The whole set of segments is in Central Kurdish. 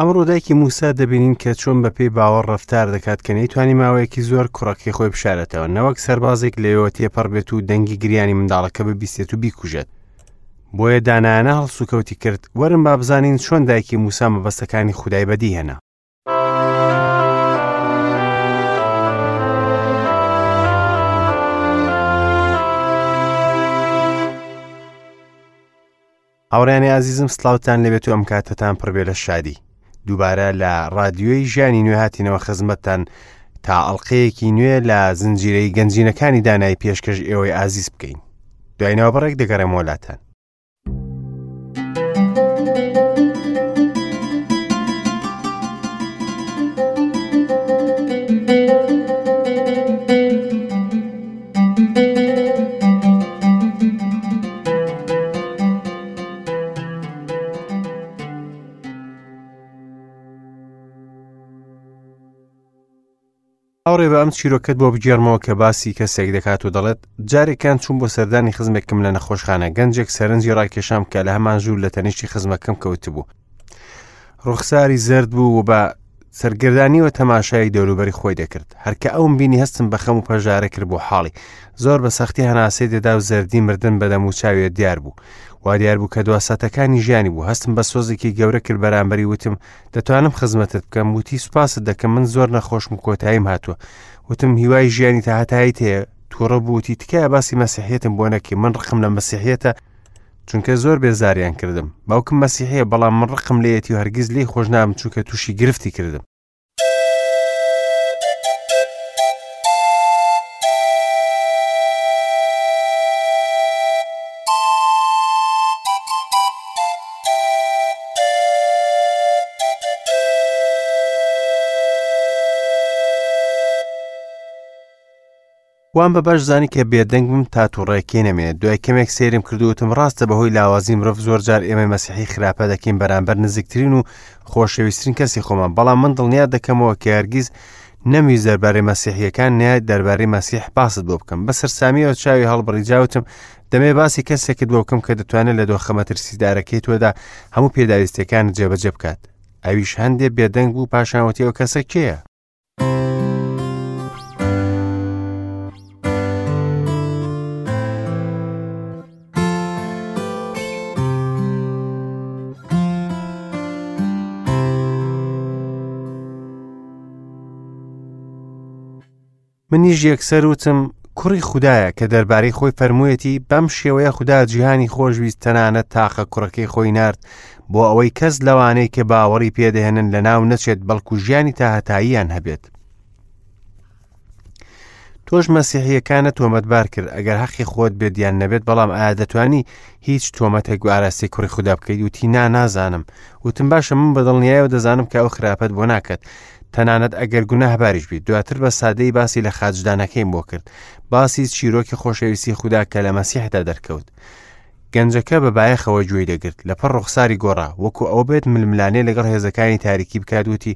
ئەمڕۆ دایکی موسا دەبینین کە چۆن بە پێی باوەڕ ڕەفتار دەکات کە نەیتوانی ماوەیەکی زۆر کوڕەکەی خۆی بشارێتەوە نەوەک سەربازێک لەوێوە تێپەڕ بێت و دەنگی گریانی منداڵەکە ببیستێت و بیکوژێت بۆیە دانایانە هەڵسوکەوتی کرد وەرن با بزانین چۆن دایکی موسا مەبەستەکانی خودای بەدیهێنا. هاوڕیانی ئازیزم سلااوان لەبێت و ئەم کاتتان پڕبێ لە شادی دووبارە لە رادیۆی ژیانی نوێ هاتینەوە خزمەتتان تا ئەڵلقەیەکی نوێ لە زنجیرەی گەنجینەکانی دانای پێشکەش ئێوەی ئازیز بکەین دوای ناوبڕێک دەگەڕێمەوە لاتان. هاوڕێ بە ئەم چیرۆکەت بۆ بگێڕمەوە کە باسی کەسێک دەکات و دەڵێت جارێکیان چوون بۆ سەردانی خزمێکم لە نەخۆشخانە گەنجێک سەرنجی ڕاکێشام کە لە هەمان ژوور لە تەنیشتی خزمەکەم کەوتبوو ڕوخساری زرد بوو و بە سەرگەردانیەوە تەماشای دەوروبەری خۆی دەکرد هەرکە ئەوم بینی هەستم بە خەم و پەژارە کرد بۆ حاڵی زۆر بە سەختی هەناسەی دەدا و زەردی مردن بە دەم و چاویە دیار بوو وا دیار بوو کە دوا ساتەکانی ژیانی بوو هەستم بە سۆزێکی گەورە کرد بەرامبەری وتم دەتوانم خزمەتت بکەم وتی سوپاست دەکەم من زۆر نەخۆشم و کۆتاییم هاتووە وتم هیوای ژیانی تا هەتاییت هەیە تووڕە بوو وتی تکایە باسی مەسیحیەتم بۆ نەکەی من ڕقم لە مەسیحیەتە چونکە زۆر بێزاریان کردم باوکم مەسیحیە بەڵام من ڕقم لێیەتی و هەرگیز لێی خۆش نابم چونکە تووشی گرفتی کردم. وام بە باش زانی کە بێدەنگ بم تا توڕەیەکەی نەمێنێت دوای کەمێک سەیرم کرد و وتم ڕاستە بەهۆی لاوازی مرۆڤ زۆر جار ئێمەی مەسیحی خراپە دەکەین بەرامبەر نزیکترین و خۆشەویسترین کەسی خۆمان بەڵام من دڵنیا دەکەمەوە کە هەرگیز نەمویست دەربارەی مەسیحیەکان نە دەربارەی مەسیح باست بۆ بکەم بە سەرسامیەوە چاوی هەڵبڕی جاوتم دەمێ باسی کەسێکت بۆ بکەم کە دەتوانێت لە دۆخە مەترسیدارەکەی تۆدا هەموو پێداویستیەکانت جێبەجێ بکات ئەویش هەندێ بێدەنگ بوو پاشان وتی ئەو کەسە کێیە؟ منیش یەکسەر وتم کوڕی خودایە کە دەربارەی خۆی فەرموویەتی بەم شێوەیە خودا جیهانی خۆشویست تەنانەت تاقە کوڕەکەی خۆی نارد بۆ ئەوەی کەس لەوانەی کە باوەڕی پێدەهێنن لەناو نەچێت بەڵکو ژیانی تاهەتاییان هەبێت. تۆش مەسیحیەکانە تۆمەتبار کرد ئەگەر حەقی خۆت بێت یان نەبێت بەڵام ئایا دەتوانی هیچ تۆمەتێک بۆ ئاراستەی کوڕی خودا بکەیت وتی نا نازانم وتم باشە من بە دڵنیایەوە دەزانم کە ئەو خراپەت بۆ ناکات تەنانەت ئەگەر گوناهباریش بیت دواتر بە سادەی باسی لە خاچدانەکەیم بۆ کرد باسی چیرۆکی خۆشەویستی خودا کە لە مەسیحدا دەرکەوت گەنجەکە بە بایەخەوە گوێی دەگرت لە پڕ ڕوخساری گۆڕا وەکو ئەوە بێت ململانێ لەگەڵ هێزەکانی تاریکی بکات وتی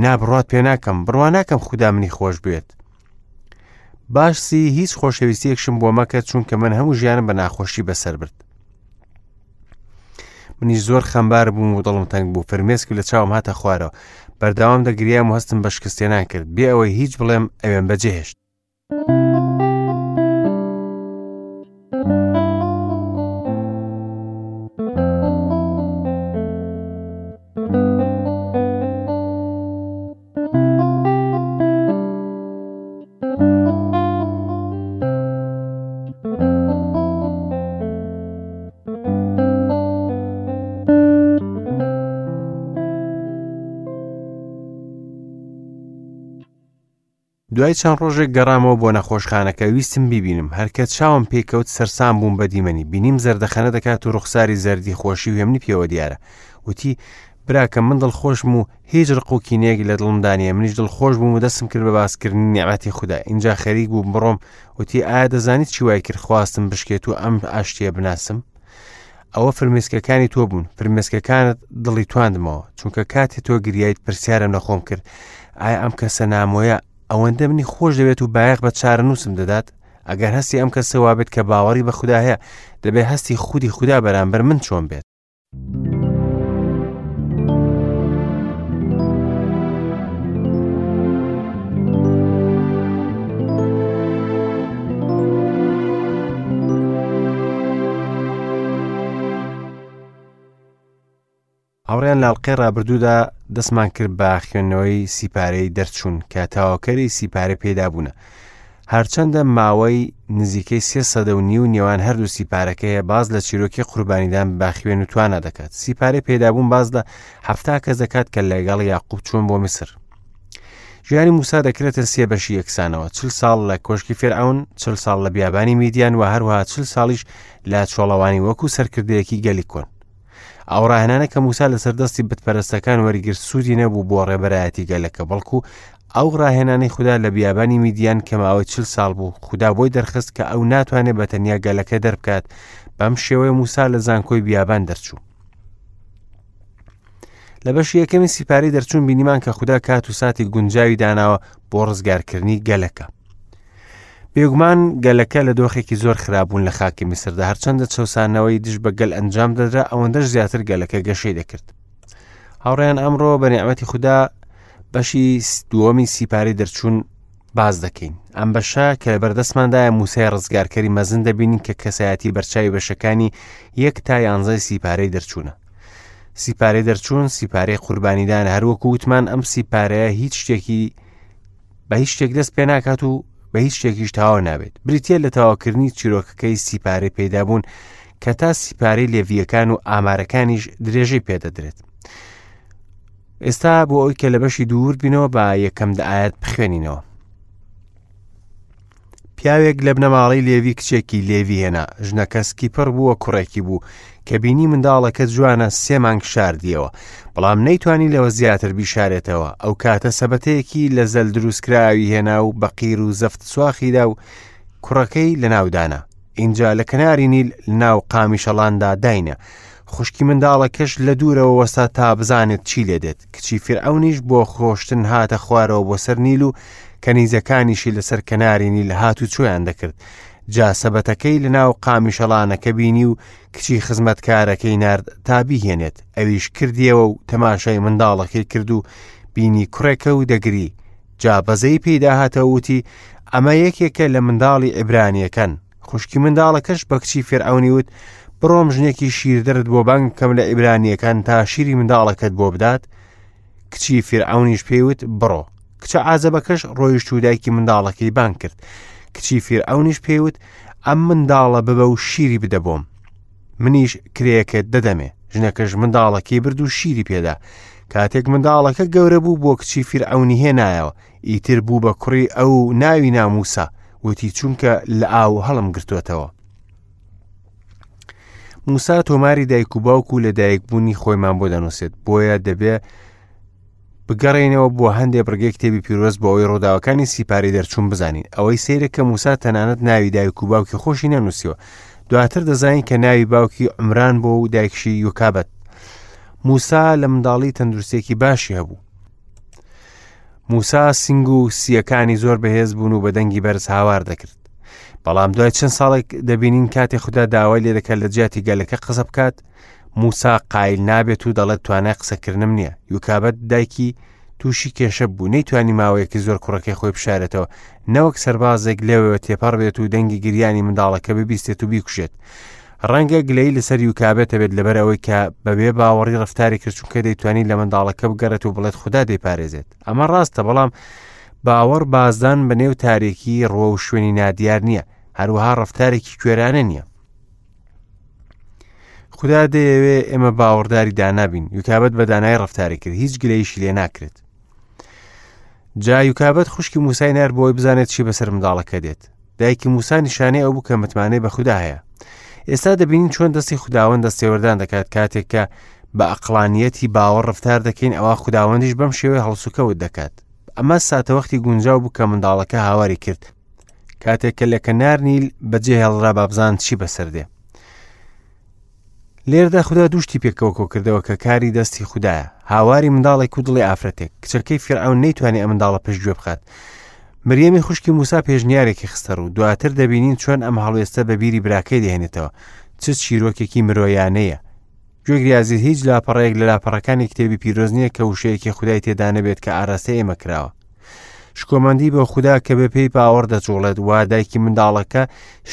نا بڕوات پێ ناکەم بڕوا ناکەم خودا منی خۆش بوێت باسی هیچ خۆشەویستیەکشم بۆ مەکە چونکە من هەموو ژیانم بە ناخۆشی بەسەر برد منیش زۆر خەمبار بووم و دڵم تەنگ بوو فرمێسک لە چاوم هاتە خوارەوە بەردەوام دەگریام و هەستم بە شکستێنان کرد بێ ئەوەی هیچ بڵێم ئەوێم بەجێهێشت دوای چەند ڕۆژێک گەڕامەوە بۆ نەخۆشخانەکە ویستم بیبینم هەرکە چاوم پێکەوت سەرسام بووم بە دیمەنی بینیم زەردەخەنە دەکات و ڕوخساری زەردی خۆشی و هێمنی پێوە دیارە وتی براکەم من دڵخۆشم و هیچ ڕق و کینەیەک لە دڵمدا نییە منیش دڵخۆش بووم و دەستم کرد بە باسکردنی نیعمەتی خودا ئینجا خەریک بووم بڕۆم وتی ئایا دەزانیت چی وای کرد خواستم بشکێت و ئەم ئاشتیە بناسم ئەوە فرمێسکەکانی تۆ بوون فرمێسکەکانت دڵی تواندمەوە چونکە کاتێ تۆ گریایت پرسیارم لە خۆم کرد ئایا ئەم کەسە نامۆیە ئەوەندە منی خۆش دەوێت و بایەخ بە چارەنووسم دەدات ئەگەر هەستی ئەم کەسە وابێت کە باوەڕی بە خودا هەیە دەبێت هەستی خودی خودا بەرامبەر من چۆن بێت. هاوڕێیان لە ئەڵقەی ڕابردوودا دەستمان کرد بە خوێندنەوەی سیپارەی دەرچوون کە تەواوکەری سیپارە پێدابوونە. هەرچەندە ماوەی نزیکەی سێ سەدە و نیو نێوان هەردوو سیپارەکە هەیە باز لە چیرۆکی قوربانیدان بە خوێن و توانا دەکات. سیپارەی پێدابوون باز لە حەفتا کەس دەکات کە لەگەڵ یاقوب چوون بۆ میسر. ژیانی موسا دەکرێتە سێ بەشی یەکسانەوە چل ساڵ لە کۆشکی فێرعون چل ساڵ لە بیابانی میدیان و هەروەها چل ساڵیش لە چۆڵەوانی وەکو سەرکردەیەکی گەلی کۆن ئەو ڕاهێنانە کە موسا لەسەر دەستی بتپەرستەکان وەریگرت سوودی نەبوو بۆ ڕێبەرایەتی گەلەکە بەڵکو ئەو ڕاهێنانەی خودا لە بیابانی میدیان کە ماوەی چل ساڵ بوو خودا بۆی دەرخست کە ئەو ناتوانێت بە تەنیا گەلەکە دەربکات بەم شێوەیە موسا لە زانکۆی بیابان دەرچوو لە بەشی یەکەمی سیپاری دەرچوون بینیمان کە خودا کات و ساتی گونجاوی داناوە بۆ ڕزگارکردنی گەلەکە بێگومان گەلەکە لە دۆخێکی زۆر خراپبوون لە خاکی میسردا هەرچەندە چەسانەوەی دژ بە گەل ئەنجام دەدرا ئەوەندەش زیاتر گەلەکە گەشەی دەکرد هاوڕێیان ئەمڕۆ بە نیعمەتی خودا بەشی دووەمی سیپاری دەرچوون باز دەکەین ئەم بەشە کە لە بەردەستماندایە موسای ڕزگارکەری مەزن دەبینین کە کەسایەتی بەرچاوی بەشەکانی یەک تا یانزای سیپارەی دەرچوونە سیپارەی دەرچوون سیپارەی قوربانیدان هەروەکو وتمان ئەم سیپارەیە هیچ شتێکی بە هیچ شتێک دەست پێ ناکات و بە هیچ شتێکیش تەواو نابێت بریتە لە تەواوکردنی چیرۆکەکەی سیپارەی پەیدابوون کە تا سیپارەی لێڤیەکان و ئامارەکانیش درێژەی پێدەدرێت ئێستا بۆ ئەوی کە لە بەشی دوور بینەوە بە یەکەم دەئاەت بخوێنینەوە پیاوێک لە بنەماڵەی لێوی کچێکی لێوی هێنا، ژنەکە سکی پڕ بووە کوڕێکی بوو، کە بینی منداڵەکە جوانە سێ مانگ شاردیەوە، بەڵام نەیتوانی لەوە زیاتر بیشارێتەوە، ئەو کاتە سەبەتەیەکی لە زەل دروستکراوی هێنا و بە قیر و زەفت سواخیدا و کوڕەکەی لەناو دانا. ئینجا لە کەناری نیل لەناو قامیشەڵاندا داینا. خوشکی منداڵەکەش لە دوورەوە وەستا تا بزانێت چی لێ دێت. کچی فیرعەونیش بۆ خۆشتن هاتە خوارەوە بۆ سەر نیل و کەنیزەکانیشی لەسەر کەناری نیل هات و چۆیان دەکرد. جا سەبەتەکەی لەناو قامیشەڵانەکە بینی و کچی خزمەتکارەکەی نارد تا بیهێنێت. ئەویش کردیەوە و تەماشای منداڵەکەی کرد و بینی کوڕێکە و دەگری. جا بەزەی پێیدا هاتەوە وتی، ئەمە یەکێکە لە منداڵی عیبرانییەکان. خوشکی منداڵەکەش بە کچی فێرعەونی وت، بڕۆم ژنێکی شیردەرت بۆ بانگ بکەم لە عیبرانییەکان تا شیری منداڵەکەت بۆ بدات؟ کچی فیرعەونیش پێی وت، بڕۆ. کچە عازەبەکەش ڕۆیشت و دایکی منداڵەکەی بانگ کرد. کچی فیرعەونیش پێی وت، ئەم منداڵە ببە و شیری بدە بۆم. منیش کرێیەکەت دەدەمێ. ژنەکەش منداڵەکەی برد و شیری پێدا. کاتێک منداڵەکە گەورە بوو بۆ کچی فیرعەونی هێنایەوە. ئیتر بوو بە کوڕی ئەو و ناوی نا موسا، وتی چونکە لە ئاو هەڵم گرتووەتەوە. موسا تۆماری دایک و باوک و لە دایکبوونی خۆیمان بۆ دەنووسێت بۆیە دەبێ بگەڕێینەوە بۆ هەندێ بڕگەی کتێبی پیرۆز بۆ ئەوەی ڕووداوەکانی سیپاری دەرچوون بزانین ئەوەی سەیرە کە موسا تەنانەت ناوی دایک و باوکی خۆشی نەنووسیوە دواتر دەزانین کە ناوی باوکی عمران بۆ و دایکشی یوکابەت موسا لە منداڵی تەندروستێکی باشی هەبوو موسا سنگ و سیەکانی زۆر بەهێز بوون و بە دەنگی بەرز هاوار دەکرد بەڵام دوای چەند ساڵێک دەبینین کاتێ خودا داوای لێ دەکات لە جیاتی گەلەکە قسە بکات موسا قایل نابێت و دەڵێت توانای قسەکردنم نییە یوکابەت دایکی تووشی کێشە بوو نەیتوانی ماوەیەکی زۆر کوڕەکەی خۆی بشارێتەوە نەوەک سەربازێک لێوەوە تێپەڕ بێت و دەنگی گریانی منداڵەکە ببیستێت و بیکوژێت ڕەنگە گلەی لەسەر یوکابێت هەبێت لەبەر ئەوەی کە بەبێ باوەڕی ڕفتاری کرد چونکە دەیتوانی لە منداڵەکە بگەڕێت و بڵێت خودا دەیپارێزێت ئەمە ڕاستە بەڵام باوەڕ بازدان بە نێو تارێکی ڕووە و شوێنی نادیار نییە هەروەها ڕفتارێکی کوێرانە نییە خودا دەیەوێ ئێمە باوەڕداری دانابین یوکابەت بە دانای ڕفتاری کرد هیچ گلەیشی لێ ناکرێت جا یوکابەت خوشکی موسای نار بۆی بزانێت چی بەسەر منداڵەکە دێت دایکی موسا نیشانەی ئەو بوو کە متمانەی بە خودا هەیە ئێستا دەبینین چۆن دەستی خوداوەند دەستێوەردان دەکات کاتێک کە بە ئەقلانیەتی باوەڕ ڕفتار دەکەین ئەوە خوداوەندیش بەم شێوەی هەڵسوکەوت دەکات ئەمە ساتەوەختی گونجاو بوو کە منداڵەکە هاواری کرد کاتێک کە لە کەنار نیل بەجێ هێڵرا بابزان چی بەسەر دێ لێردا خودا دوشتی پێکەوە کۆکردەوە کە کاری دەستی خودایە هاواری منداڵێک و دڵی ئافرەتێک کچەکەی فیرعەون نەیتوانی ئەم منداڵە پشتگوێ بخات مریەمی خوشکی موسا پێشنیارێکی خستە ڕوو دواتر دەبینین چۆن ئەم هەڵوێستە بە بیری براکەی دەهێنێتەوە چ چیرۆکێکی مرۆیانەیە گوێگری ئازیز هیچ لاپەڕەیەک لە لاپەڕەکانی کتێبی پیرۆز نییە کە وشەیەکی خودای تێدا نەبێت کە ئاراستەی ئێمە کراوە. شکۆمەندی بۆ خودا کە بە پێی باوەڕ دەجوڵێت وا دایکی منداڵەکە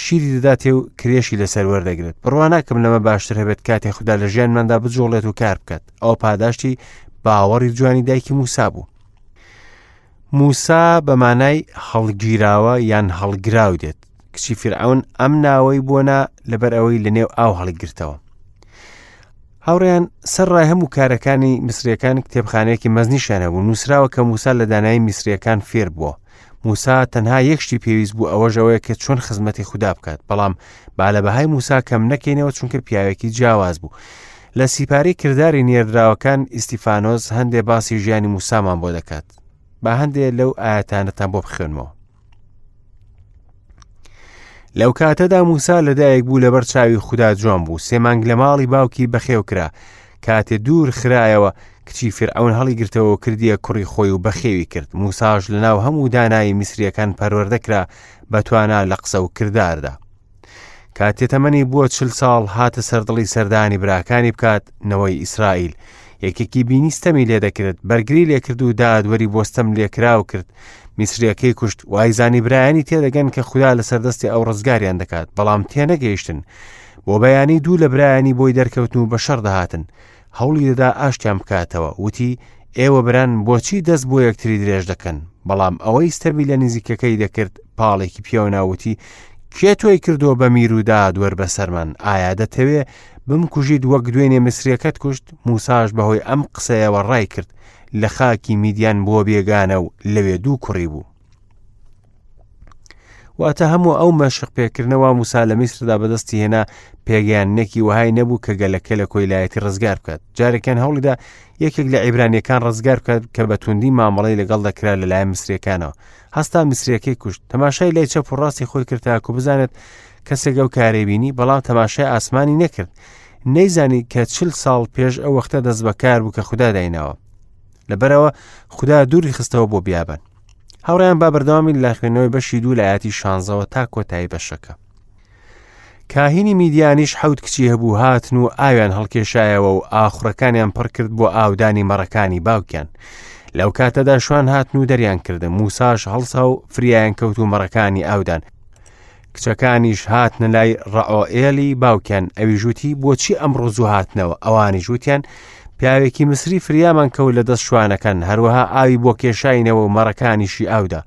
شیری دەداتێ و کرێشی لەسەر وەردەگرێت. بڕوا ناکەم لەمە باشتر هەبێت کاتێ خودا لە ژیانماندا بجوڵێت و کار بکات. ئەوە پاداشتی باوەڕی جوانی دایکی موسا بوو. موسا بە مانای هەڵگیراوە یان هەڵگراو دێت. کچی فیرعەون ئەم ناوەی بۆ نا لەبەر ئەوەی لەنێو ئاو هەڵیگرتەوە. هاوڕێیان سەر ڕای هەموو کارەکانی میسریەکان کتێبخانەیەکی مەزنیشیان هەبوو نووسراوە کە موسا لە دانایی میسریەکان فێر بووە موسا تەنها یەک شتی پێویست بوو ئەوەش ئەوەیە کە چۆن خزمەتی خودا بکات بەڵام با لە بەهای موسا کەم نەکەینەوە چونکە پیاوێکی جیاواز بوو لە سیپارەی کرداری نێردراوەکان ئیستیفانۆس هەندێ باسی ژیانی موسامان بۆ دەکات با هەندێ لەو ئاەتانەتان بۆ بخوێنمەوە لەو کاتەدا موسا لەدایک بوو لەبەر چاوی خودا جوان بوو سێ مانگ لە ماڵی باوکی بەخێو کرا کاتێ دوور خرایەوە کچی فرعون هەڵیگرتەوە و کردیە کوڕی خۆی و بەخێوی کرد موساش لەناو هەموو دانایی میسریەکان پەروەردە کرا بە توانا لە قسە و کرداردا کاتێ تەمەنی بووە چل ساڵ هاتە سەردڵی سەردانی براکانی بکات نەوەی ئیسرائیل یەکێکی بینی ستەمی لێ دەکرد بەرگری لێکرد و دادوەری بۆ ستەم لێکراو کرد میسریەکەی کوشت وایزانی برایانی تێدەگەن کە خودا لەسەر دەستی ئەو ڕزگاریان دەکات بەڵام تێنەگەیشتن بۆ بەیانی دوو لە برایانی بۆی دەرکەوتن و بە شەڕ دەهاتن هەوڵی دەدا ئاشتیان بکاتەوە وتی ئێوە بران بۆچی دەست بۆ یەکتری درێژ دەکەن بەڵام ئەوەی ستەمی لە نزیکەکەی دەکرد پاڵێکی پێوەنا وتی کێ تۆی کردووە بە میر و دادوەر بەسەرمان ئایا دەتەوێ بمکوژیت وەک دوێنێ میسریەکەت کوشت موساش بەهۆی ئەم قسەیەوە ڕای کرد لە خاکی میدیان بۆ بێگانە و لەوێ دوو کوڕی بوو واتە هەموو ئەو مەشق پێکردنەوە موسا لە میسردا بەدەستی هێنا پێگەیاندنێکی وەهای نەبوو کە گەلەکە لە کۆیلایەتی ڕزگار بکات جارێکیان هەوڵیدا یەکێک لە عیبرانیەکان ڕزگار بکات کە بە توندی مامەڵەی لەگەڵ دەکرا لەلایەن میسریەکانەوە هەستا میسریەکەی کوشت تەماشای لای چەپ و ڕاستی خۆی کرد تاکو بزانێت کەسێک ئەو کارەی بینی بەڵام تەماشای ئاسمانی نەکرد نەیزانی کە چل ساڵ پێش ئەو وەختە دەست بەکار بوو کە خودا دایناوە لەبەرەوە خودا دووری خستەوە بۆ بیابان هاوڕێیان با بەردەوامی لە خوێندنەوەی بەشی دوو لە ئاەتی شانزەوە تا کۆتایی بەشەکە کاهینی میدیانیش حەوت کچی هەبوو هاتن و ئاویان هەڵکێشایەوە و ئاخڕەکانیان پڕ کرد بۆ ئاودانی مەڕەکانی باوکیان لەو کاتەدا شوان هاتن و دەریان کردن موساش هەڵسا و فریایان کەوت و مەڕەکانی ئاودان کچەکانیش هاتنە لای ڕەعۆئێلی باوکیان، ئەویش وتی، بۆچی ئەمڕۆ زوو هاتنەوە؟ ئەوانیش وتیان، پیاوێکی میسری فریامان کەوت لە دەست شوانەکان، هەروەها ئاوی بۆ کێشاینەوە و مەڕەکانیشی ئاودا.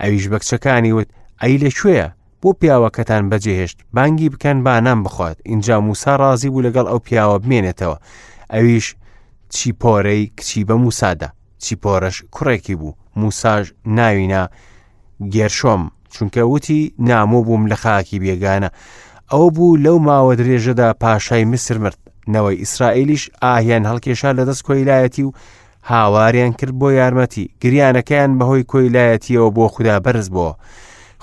ئەویش بە کچەکانی وت، ئەی لە کوێیە؟ بۆ پیاوەکەتان بەجێهێشت؟ بانگی بکەن با نان بخوات. ئینجا موسا ڕازی بوو لەگەڵ ئەو پیاوە بمێنێتەوە. ئەویش چیپۆرەی کچی بە موسا دا. چیپۆرەش کوڕێکی بوو، موساش ناوی نا گێرشۆم، چونکە وتی نامۆ بووم لە خاکی بێگانە ئەو بوو لەو ماوە درێژەدا پاشای میسر مرد نەوەی ئیسرائیلیش ئاهیان هەڵکێشا لە دەست کۆیلایەتی و هاواریان کرد بۆ یارمەتی گریانەکەیان بەهۆی کۆیلایەتیەوە بۆ خودا بەرز بووە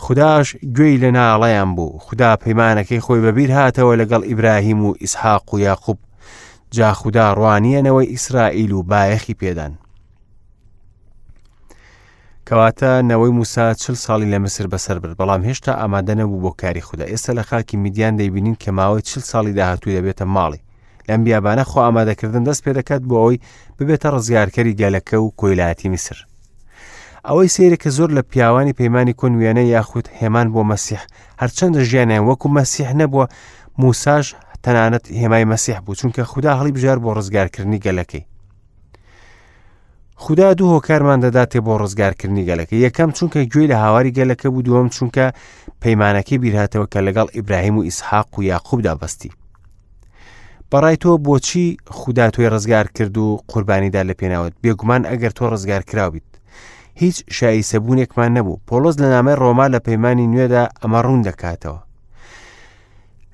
خوداش گوێی لە ناڵەیان بوو خودا پەیمانەکەی خۆی بەبیر هاتەوە لەگەڵ ئیبراهیم و ئیسحاق و یاقوب جا خودا ڕوانیە نەوەی ئیسرائیل و بایەخی پێدان کەواتە نەوەی موسا چل ساڵی لە میسر بەسەر برد، بەڵام هێشتا ئامادە نەبوو بۆ کاری خودا. ئێستا لە خاکی میدیان دەیبینین کە ماوەی چل ساڵی داهاتوو دەبێتە ماڵی. لەم بیابانە خۆ ئامادەکردن دەست پێ دەکات بۆ ئەوەی ببێتە ڕزگارکەری گەلەکە و کۆیلایەتی میسر. ئەوەی سەیرە کە زۆر لە پیاوانی پەیمانی کۆن وێنە یاخود هێمان بۆ مەسیح هەرچەندە ژیانیان وەکو مەسیح نەبووە موساش تەنانەت هێمای مەسیح بوو چونکە خودا هەڵی بژار بۆ ڕزگارکردنی گەلەکەی. خودا دوو هۆکارمان دەداتێ بۆ ڕزگارکردنی گەلەکە یەکەم چونکە گوێی لە هاواری گەلەکە بوو دووەم چونکە پەیمانەکەی بیرهاتەوە کە لەگەڵ ئیبراهیم و ئیسحاق و یاقوبدا بەستی بەڕای تۆ بۆچی خودا تۆی ڕزگار کرد و قوربانیدا لە پێناوت بێگومان ئەگەر تۆ ڕزگار کراویت هیچ شایسەبوونێکمان نەبوو پۆلۆس لە نامەی ڕۆما لە پەیمانی نوێدا ئەمە ڕوون دەکاتەوە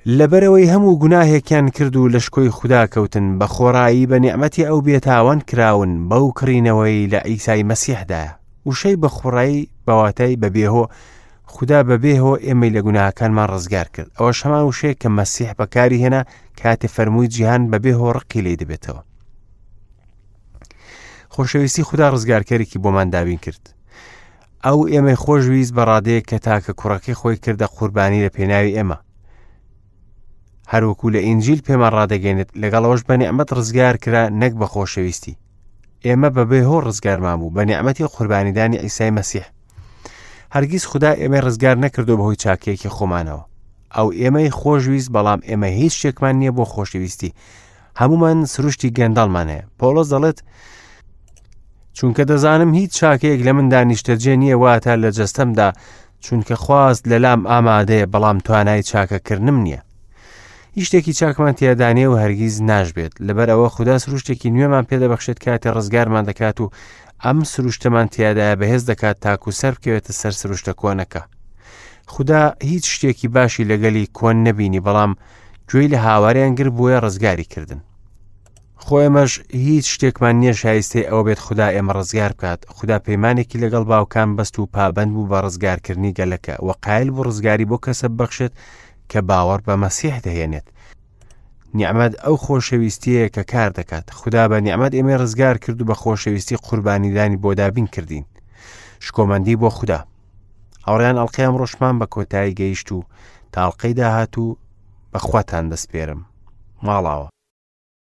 لەبەرئەوەی هەموو گوناهێکیان کرد و لە شکۆی خودا کەوتن، بە خۆڕایی بە نیعمەتی ئەو بێتاوان کراون بەو کڕینەوەی لە عیسای مەسیحدایە. وشەی بە خۆڕایی بە واتای بە بێهۆ، خودا بە بێهۆ ئێمەی لە گوناهەکانمان ڕزگار کرد. ئەوەش هەمان وشەیە کە مەسیح بەکاری هێنا کاتێ فەرمووی جیهان بە بێهۆ ڕقی لێی دەبێتەوە. خۆشەویستی خودا ڕزگارکەرێکی بۆمان دابین کرد. ئەو ئێمەی خۆشویست بە ڕادەیەک کە تاکە کوڕەکەی خۆی کردە قوربانی لە پێناوی ئێمە. هەروەکو لە ئینجیل پێمان ڕادەگەێنێت لەگەڵەوەش بە نیعمەت ڕزگار کرا نەک بە خۆشەویستی. ئێمە بەبێ هۆ ڕزگارمان بوو بە نیعمەتی قوربانیدانی عیسای مەسیح. هەرگیز خودا ئێمەی ڕزگار نەکردو بەهۆی چاکەیەکی خۆمانەوە. ئەو ئێمەی خۆشویست بەڵام ئێمە هیچ شتێکمان نییە بۆ خۆشەویستی. هەمومان سروشتی گەندەڵمان هەیە. پۆڵۆس دەڵێت چونکە دەزانم هیچ چاکەیەک لە مندا نیشتەجێ نییە واتە لە جەستەمدا چونکە خواست لەلام ئامادەیە بەڵام توانای چاکەکردنم نییە. هیچ شتێکی چاکمان تیادا نییە و هەرگیز ناشبێت لەبەر ئەوە خودا سروشتێکی نوێمان پێدەبەخشێت کاتێ ڕزگارمان دەکات و ئەم سروشتەمان تیادایە بەهێز دەکات تاکو سەر بکەوێتە سەر سروشتە کۆنەکە خودا هیچ شتێکی باشی لەگەلی کۆن نەبینی بەڵام گوێی لە هاواریان گر بۆیە ڕزگاری کردن خۆ ئێمەش هیچ شتێکمان نییە شایستەی ئەوە بێت خودا ئێمە ڕزگار بکات خودا پەیمانێکی لەگەڵ باوکان بەست و پابەند بوو بە ڕزگارکردنی گەلەکە و قایل بوو ڕزگاری بۆ کەسە ببەخشێت کە باوەڕ بە مەسیح دەهێنێت نیعمەت ئەو خۆشەویستیەیە کە کار دەکات خودا بە نیعمەت ئێمەی ڕزگار کرد و بە خۆشەویستی قوربانیدانی بۆ دابین کردین شکۆمەندی بۆ خودا هاوڕیان ئەڵلقەی ئەمڕۆشمان بە کۆتایی گەیشت و تاڵقەی داهات و بەخواتان دەسپێرم ماڵاوە.